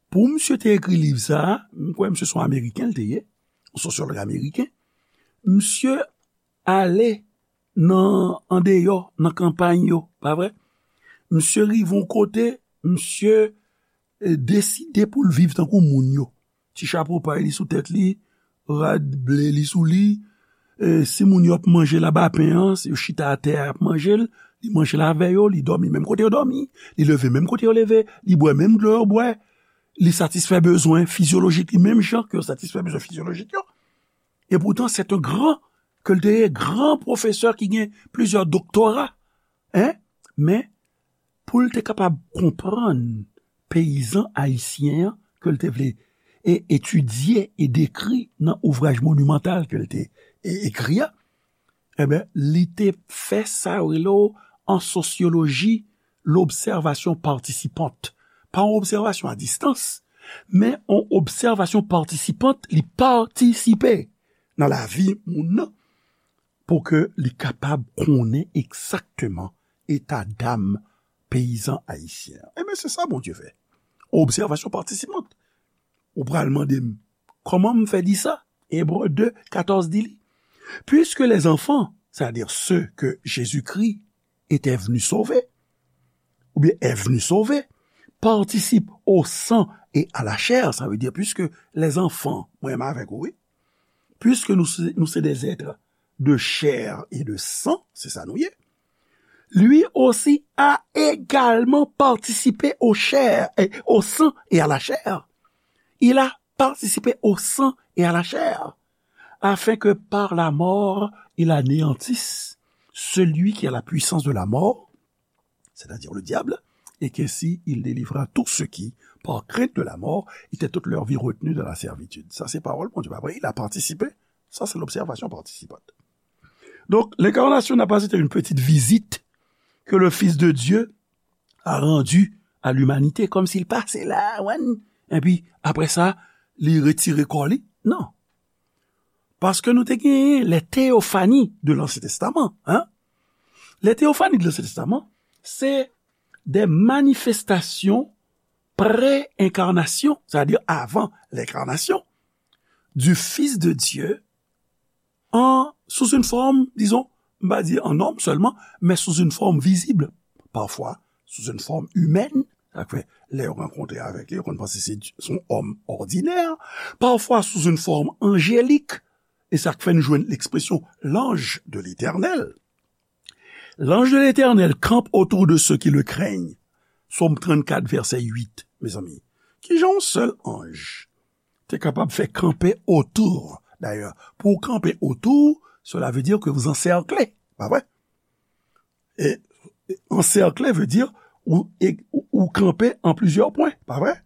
Pou misye te ekri liv sa a, m kwè misye se yon Ameriken l te ye, yon sosyològ ameriken. Misye ale nan, andeyò, nan kanpay yo, pa vre? Misye rive yon kote, misye, e, deside pou l viv tankou moun yo. Ti chapo pay li sou tèt li, rad ble li sou li. E, si moun yo ap manje labapen an, si yo chita atè a, y ap manje l, li manje l avè yo, li dòmi menm kote yo dòmi, li leve menm kote yo leve, li bwè menm dlo yo bwè, li satisfè bezwen fizyolojik li menm jan ke yo satisfè bezwen fizyolojik yo. E poutan, se yon gran, ke l te ye, gran pwofesè ki gen plizyè doktora, en, men pou l te kapab konprann peyizan ayisyen an ke l te vle e etidye e dekri nan ouvraj monimantal ke l te e, ekri a, enben, li te fè sa yo rele w an sosyoloji lobsèvasyon patisipant. Pa yon obsèvasyon a distans, men yon obsèvasyon patisipant, li patisipe nan lavi moun nan pou ke li kapab konnen egzakteman eta dam peyizan ayisyen an. Ebyen, se sa Bondye fè. Obsèvasyon patisipant. Ou pral mande m, kòman m fè di sa? Ebre de, katòz di li, puisque les enfants, c'est-à-dire ceux que Jésus-Christ était venu sauver, ou bien est venu sauver, participent au sang et à la chair, sa vle di, puisque les enfants, mwen menm avèk ou, wi, puisque nous, nous sommes des êtres de chair et de sang, se sa nou ye, lui aussi a également participé au chair, et au sang et à la chair. Il a participé au sang et à la chair, afin que par la mort, il anéantisse celui qui a la puissance de la mort, c'est-à-dire le diable, et qu'ainsi il délivra tous ceux qui, par crainte de la mort, étaient toute leur vie retenus dans la servitude. Sa se pawòl Bondye, pa vre? Il a participé. Ça, c'est l'observation participante. Donc, l'incarnation n'a pas été une petite visite que le Fils de Dieu a rendue à l'humanité, comme s'il passait là, wan, epi apre sa, li retire kò li. Non. Paske nou te genyen les théophanies de l'Ancien Testament, hein? Les théophanies de l'Ancien Testament, c'est des manifestations pré-incarnation, c'est-à-dire avant l'incarnation, du Fils de Dieu en, sous une forme, disons, m pa di en homme seulement, mais sous une forme visible, parfois sous une forme humaine, sa k fè, lè yo rankontre avèk li, yo konn panse se, se yon òm òdinè, parfois sous une forme angélique, e sa k fè n jwenn ekspresyon l'ange de l'Éternel. L'ange de l'Éternel campe autour de ceux qui le craignent. Sòm trannkat, vèsè uit, mezanmi. Kijan yon sèl anj te kapab fè kanpe otou? Dayè, pou w kanpe otou, cela veut dire que vous encerclez, pa vre? E Ansèkle vle di ou, ou, ou kanpe an plizyè pwen, pa vre?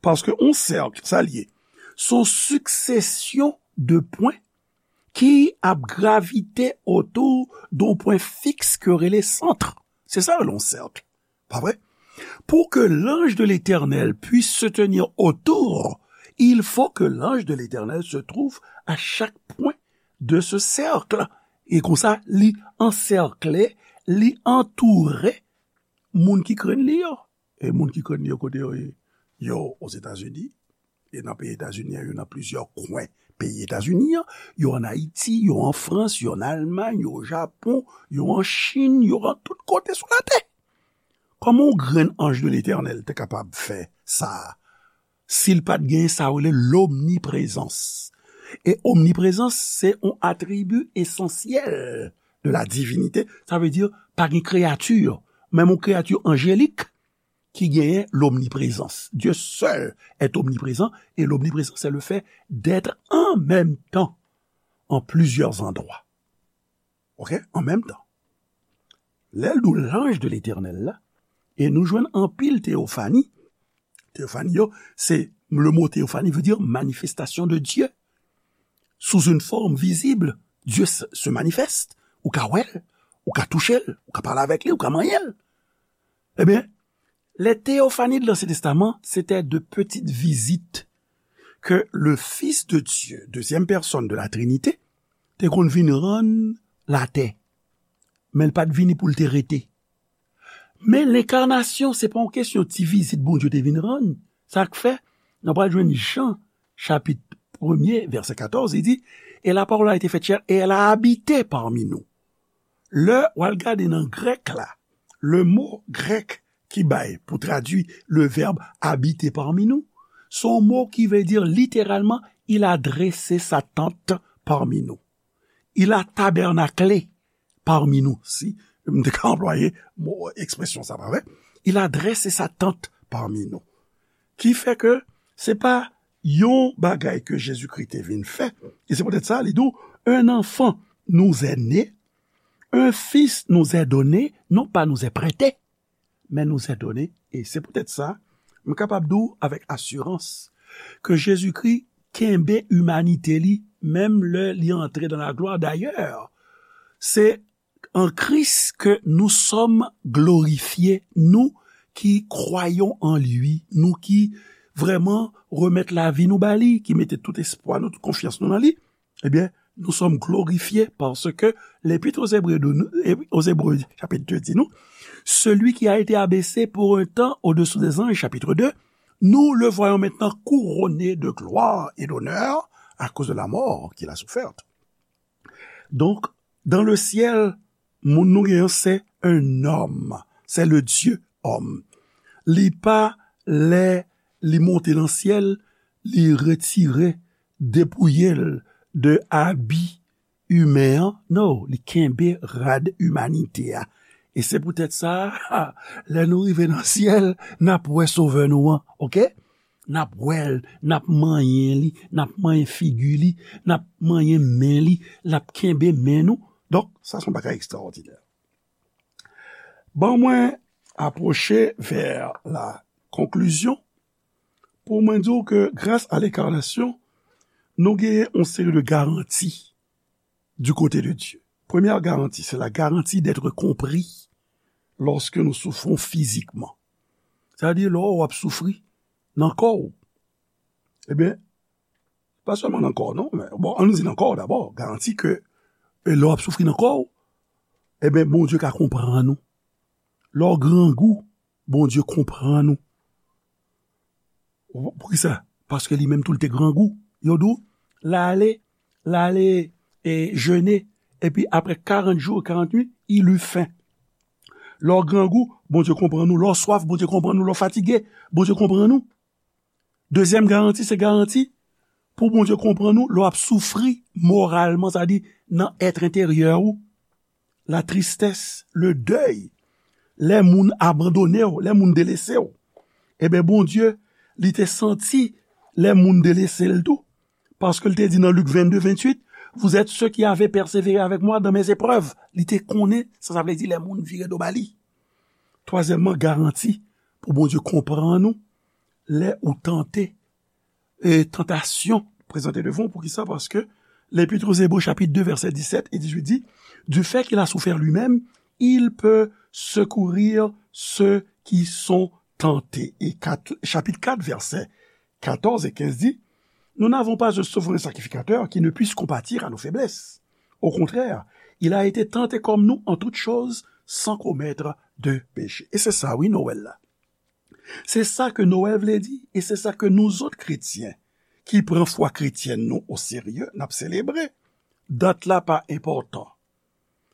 Paske yon sèk, sa l ye? Se yon siksesyon de pwen ki ap gravite otou de yon pwen fiks ke yo rele sant. Se sa yo rele yon sèk. Pa vre? Pour que l'ange de l'Éternel puisse se tenir autour, il faut que l'ange de l'Éternel se trouve à chaque point de ce cercle. E konsa, li ansèkle, li antoure moun ki krenn li yo. E moun ki krenn li yo, kote yo ye? Yo Ozetazini, e nan peyi Etazini an, yo nan plizyè kwen peyi Etazini an, yo ann Ayiti, yo an Frans, yo ann Almay, yo o Japon, yo an Chin, yo an tout kote sou latè. Kòman yon grenn anj de Letènèl te kapab fè sa a? Si l pa t gen sa yo rele lomniprezans. E omniprezans, se yon atribi esansyèl de la divinite. Sa vle di, pa gen kreyati, menm yon kreyati anjelik, ki genyen lomniprezans. Dieu seul est omniprésent, et l'omniprésence, c'est le fait d'être en même temps en plusieurs endroits. Ok? En même temps. Lè l di w l'ange de l'Éternel la, e nou jwenn anpil teyofani. Teyofani yo, se, le mot théophanie veut dire manifestation de Dieu. Sous une forme visible, Dieu se, se manifeste. Ou ka wè l, ou ka touche l, ou ka pale avèk li, ou ka manyen l. Ebyen, les théophanies de l'Ancien Testament, c'était de petites visites que le Fils de Dieu, deuxième personne de la Trinité, te konn vin rann latè. Men l pa t vini pou l te rete. Men lenkarnasyon, se pa yon kesyon ti vizit Bondye te vin rann. Sa k fè, nou pral jwenn Jan, chapit premye, vèsè katòz, li di, et la parole a été faite chair et elle a habité parmi nous. Lè w al gade nan grèk la, le mo grèk ki bay pou tradui le verbe habiter parmi nous, se yon mo ki vle di literalman, il a dressé sa tente parmi nous. Il a tabernaclé parmi nous, si m te ka anplwaye mo, ekspresyon sa, pa vre? Il a dressé sa tente parmi nous. Ki fè ke se pa yon bagay ke Jezikri te vin fè. E se poutèt sa, li di w, un enfant nous est né, un fils nous est donné, non pas nous est prêté, mais nous est donné. E se poutèt sa, m kapab di w avèk asirans ke Jezikri kenbe imanite li, menm lè li antre dans la gloire. D'ailleurs, c'est en Christ que nous sommes glorifiés, nous qui croyons en lui, nou ki vrèman remèt lavi nou ba li, ki mete tout espwa nou, tout konfyans nou nan li, ebyen, nous sommes glorifiés parce que l'Épître aux Hébreux, de, aux Hébreux, chapitre deux, di nou, celui qui a été abaissé pour un temps au-dessous des anges, chapitre deux, nous le voyons maintenant couronné de gloire et d'honneur à cause de la mort qu'il a soufferte. Donk, dans le ciel, moun nou genyen, c'est un homme, c'est le Dieu homme. Li pa lè li monte nan syèl, li retire, depouye l de abi imen an. Non, li kenbe rad imanite a. E se poutèt sa, lè nou rive nan syèl, n ap wè Sovè nou an, oke? N ap wè l, n ap manyen li, n ap manyen figi li, n ap manyen men li, l ap kenbe men nou. Donk, sa se yon bagay ekstraòdinè. Ban mwen apwoche vè la konklizyon pou mwen di w ke gras a lenkarnasyon, nou genyen yon seri de garanti du côté de Dieu. Première garantie, c'est la garantie d'être compris lorsque nous souffrons physiquement. Sa vle di, lè w ap soufri nan kò w. Ebyen, pa sèlman nan kò w, non, men, bon, ann nou di nan kò w dabò, garanti ke, e, lè w ap soufri nan kò w, ebyen, Bondye ka konprann ou. Lè w grangou, Bondye konprann ou. Poukisa? Paske li menm tou l te grangou. Yo di w, l ale, l ale, e, jene, epi apre karant jou e karant nuit, il eut faim. Lè w grangou, Bondye konprann ou. Lè w swaf, Bondye konprann ou. Lè w fatige, Bondye konprann ou. Dezyèm garanti, se garanti pou Bondye konprann ou lè w ap soufri moralman, sa di nan èt enteryè ou, la tristès, le dèy, lè moun abandone w, lè moun delese w. Ebyen, Bondye, li te santi lè moun delese l tou, paske l te di nan Lik vennde, venntuit, vous êtes ceux qui avez persévéré avec moi dans mes épreuves. Li te konnen sa sa vle di lè moun vire do ba li. twazyèmman, garanti pou Bondye konprann ou lè ou tante, e tantasyon prezante devan w. Poukisa? Paske Lèpit aux Hébreux, chapitre deux, verset dix-sept et dix-huit dit, du fait qu'il a souffert lui-même, il peut secourir ceux qui sont tentés. Et quatre, chapitre quatre, verset quatorze et quinze dit, nous n'avons pas un souverain sacrificateur qui ne puisse compatir à nos faiblesses. Au contraire, il a été tenté comme nous en toutes choses, sans commettre de péché. E se sa, wi, Nwèl la. Se sa ke Nwèl vle di, e se sa ke nou zòt kretyen, ki pran fwa kretyèn nou oserye, n ap selebre. Dat la pa enpòtan.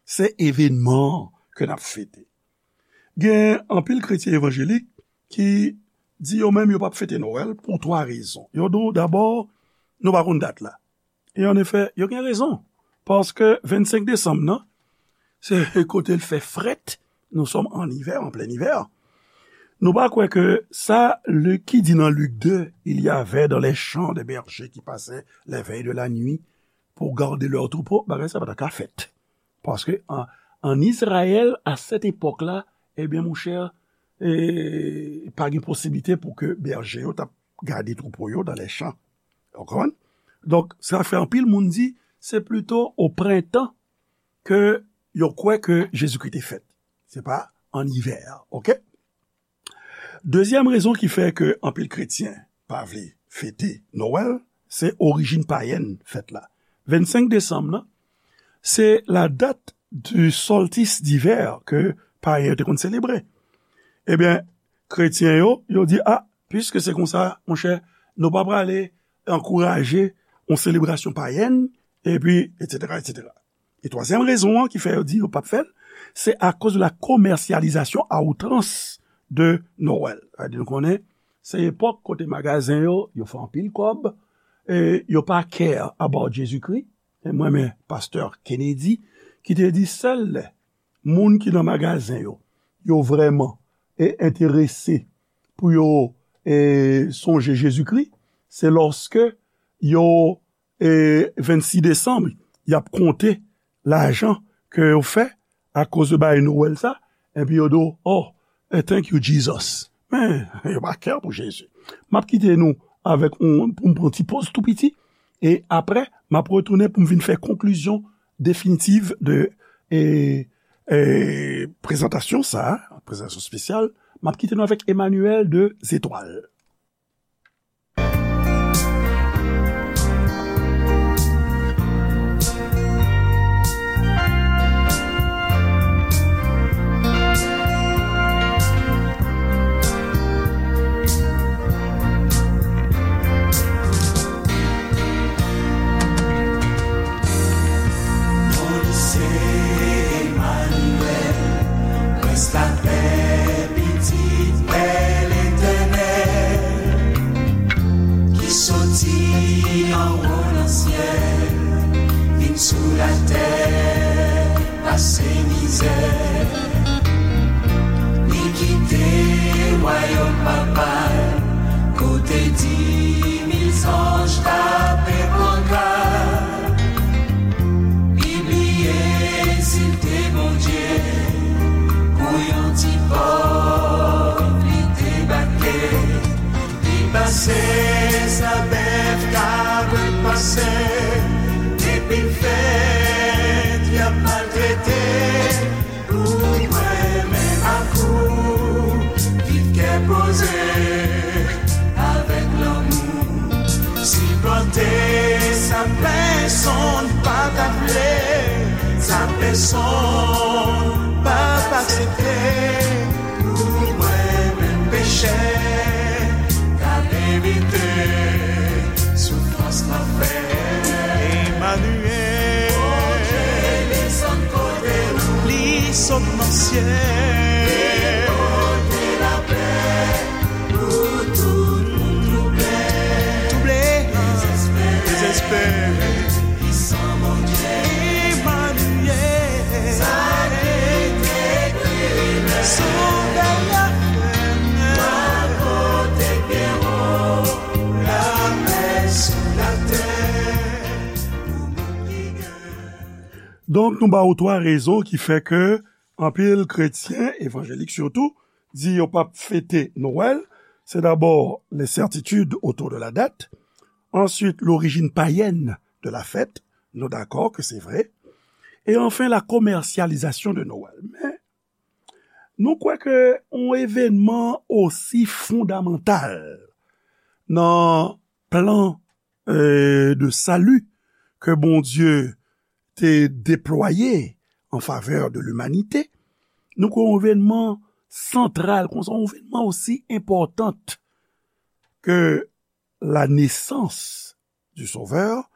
Se evenman an ke n ap fete. Gen anpil kretyen evanjelik ki di yo menm yo p ap fete Nwèl pou twa rezon. Yo di w, dabò, nou pa konn dat la. E an efè, yo gen rezon. Paske vennsenk desanm nan, se kote l fè frèt. Nous sommes en hiver, en plein hiver. Nou pa kwè ke sa Lik ki di nan Lik de, il y avait dans les champs des bergers qui passaient les veilles de la nuit pour garder leurs troupeaux, bagay sa pa ta ka fèt. Paske an, an Izrayèl, a sèt epòk la, ebyen, monchè, e, pa gen posiblite pou ke bèje yo t ap gade twoupo yo dans les champs. Ou konprann? Donk, sa fè anpil moun di, se plito o prentan ke yo kwè ke Jezikri te fèt. Se pa an ivè, oke? Dezyèm rezon ki fè ke anpil kretyen pa vle fete Nwèl, se orijin payèn fèt la. Vennsenk desanm nan, se la date du solstice d'hiver ke payen yo te konn selebre. Ebyen, kretyen yo, yo di, a, piske se konsa, monchè, nou pa prale ankouraje yon selebrasyon payèn, epi, etsetera, etsetera. E twazyèm rezon an ki fè yo di yo p ap fè l, se akoz de la commercialisation à outrance de Noël. Sa vle di nou konnen, se epòk kote magazen yo, yo fè anpil kòb, e yo pa care about Jezikri. E mwen renmen pastè Kennedy ki te di sèl lè moun ki nan magazen yo, yo vrèman, e, enterese pou yo, e, sonje Jezikri, se lòske yo, e, vennsis desanm, y ap konte lajan ke yo fè akoz de bagay Nwèl sa, epi yo di w, oh, e, thank you, Jesus. Men, yo pa care pou Jezi. M ap kite nou avèk yon, pou m pran ti poz tou piti, e apre, m ap retounen pou m vin fè konklizyon definitiv de, e, e, prezantasyon sa, prezantasyon espesyal. M ap kite nou avèk Emmanuel de Zetwal. Mwen se Emmanuel, prens lapè, pitit Pè Letènèl, ki soti anwo nan syèl, vin sou latè, pase mizè. Li kite wayòm Papa l, kote di mil zanj tape pankat. Li bliye si l te Bondye, pou yon ti pòv li debake. Li pase sa bèf, kabrit pase, depi l fèt, y ap maltrete. Pou mwen menm ak ou, viv kè poze, avèk lanmou, sipòte sa pèsonn pa ta vle, sa pèsonn p ap aksepte. Pou mwen menm pechè k ap evite soufrans lanfè. Emmanuel. Bondye desann kote nou. Li sot nan syèl. Li pote lapè pou tout moun twouble. Twouble. Dezespere. Dezespere. Pwisan Bondye. Emmanuel. Sa ki te ekri lè. Sovè la fè. Wa kote pye wo. Lapè sou latè. Pou moun ki gen. Donk, nou ba ou twa rezon ki fè ke anpil kretyen, evanjelik sitou, di yo p ap fete Nwèl, se dabò l'incertitude autour de la date, ensuite l'origine païenne de la fête, nou dakò ke se vre, e anfen la commercialisation de Noël. Men, nou kwè ke yon evènman osi fondamantal nan plan, euh, de salut ke Bondye te deplwaye en faveur de l'humanité, nou kwè yon evènman santral, konsa, yon evènman osi enpòtan ke la naissance du Sauveur,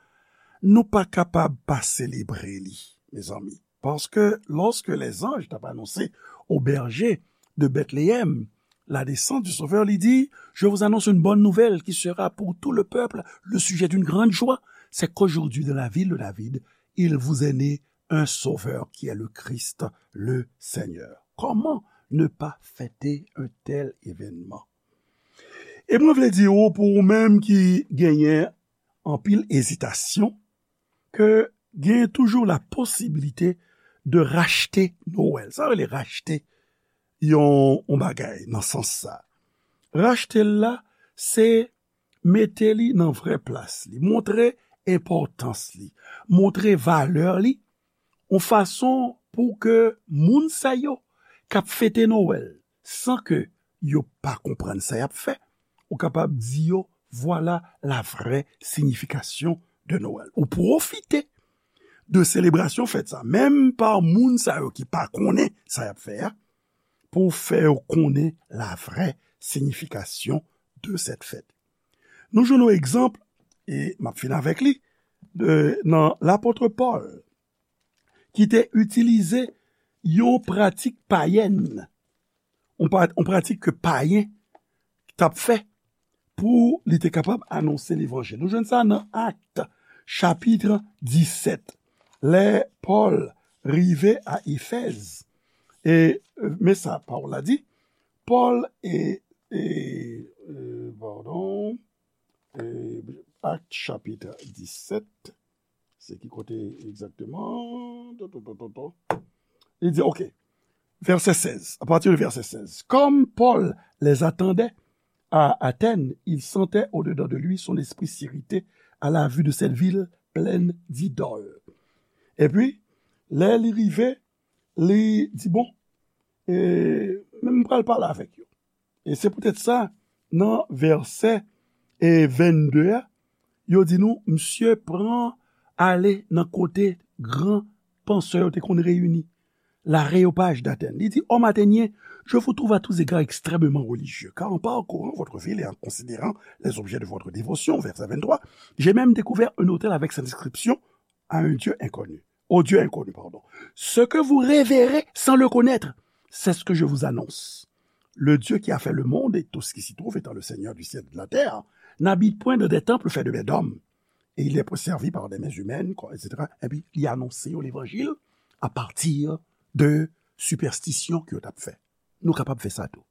nou pa kapab pa selebre li, mezanmi. Paske lorsque les anges t ap anonse aux bergers de Bethléem la naissance du Sauveur, li di, je vous annonce une bonne nouvelle qui sera pour tout le peuple le sujet d'une grande joie, c'est qu'aujourd'hui dans la ville de David, il vous est né un Sauveur qui est le Christ, le Seigneur. Comment ne pas fêter un tel événement? E mwen vle di w, pou ou menm ki genyen anpil ezitasyon, ke gen toujou la posibilite de rachte Nwèl. Sa rele rachte yon, yon bagay nan sans sa. Rachte l la, se mete li nan vrè plas li, montre enpòtans li, montre valè li, yon fason pou ke moun sa yo k ap fete Nwèl san ke yo pa konprann sa y ap fè, ou kapab di yo, voilà la vraie signification de Noël. Ou pwofite de selebrasyon fèt sa, menm pa moun sa yo ki pa konnen sa y ap fè a, pou w fè yo konnen la vraie signification de cette fête. Nou jwenn yon egzanp, e m ap fin avèk li, de, nan lapot Pòl, ki te itilize yon pratik payèn, yon pra-, yon pratik ke payen t ap fè pou li te kapab anonse levanjil. Nou jwenn sa nan Akt, chapit disèt. Lè Pòl rive a Efèz, e, e, men sa pawòl la di, Pòl e, e, e, padon, e, Akt chapit disèt, se ki kote egzakteman? To, to, to, to, to. Li di, ok, verset seize, à partir de verset seize. Comme Paul les attendait à Athènes, il sentait au-dedans de lui son esprit s'irriter à la vue de cette ville pleine d'idoles. Epi, lè li rive, li di, bon, e, men m pral pale avèk yo. E se poutèt sa, nan vèsè, e, vennde a, yo di nou, misye pran ale nan kote gran pansè yo te konn reyini, l'Aréopage d'Athènes. Li di, Hommes athéniens, je vous trouve à tous égards extrêmement religieux, car en parcourant votre ville et en considérant les objets de votre dévotion, verset vingt-trois, j'ai même découvert un autel avec cette inscription, à un Dieu inconnu, au Dieu inconnu, pardon. Ce que vous révérez sans le connaître, c'est ce que je vous annonce. Le Dieu qui a fait le monde et tout ce qui s'y trouve, étant le Seigneur du ciel et de la terre, n'habite point dans des temples faits de mains d'hommes, et il n'est pas servi par des mains humaines, et cetera. Epi, li anonse yo levanjil apati de sipèstisyon ke yo t ap fè. Nou kapab fè sa tou.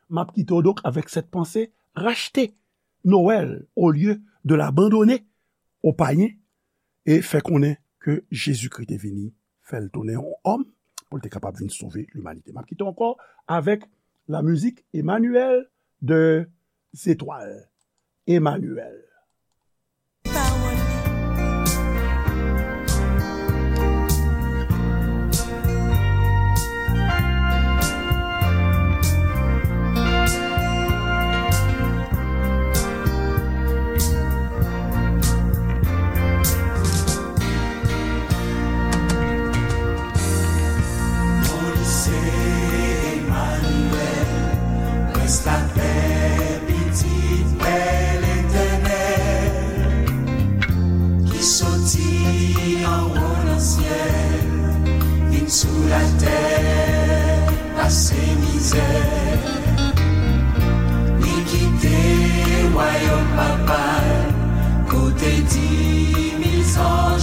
M ap kite w donk avèk cette pensée, rachte Noël au lieu de l'abandonner aux païens, e fè konnen ke Jezikri te vini, fè l tounen yon òm, pou l te kapab vin sove limanite. M ap kite w ankò avèk la mizik Emmanuel de Zetwal. Emmanuel. Moïse Emmanuel, Prince la paix, pitit Pè Letènèl, ki soti anwo nan syèl, vin sou latè, pase mizè. Li kite wayòm papa l, kote di mil zanj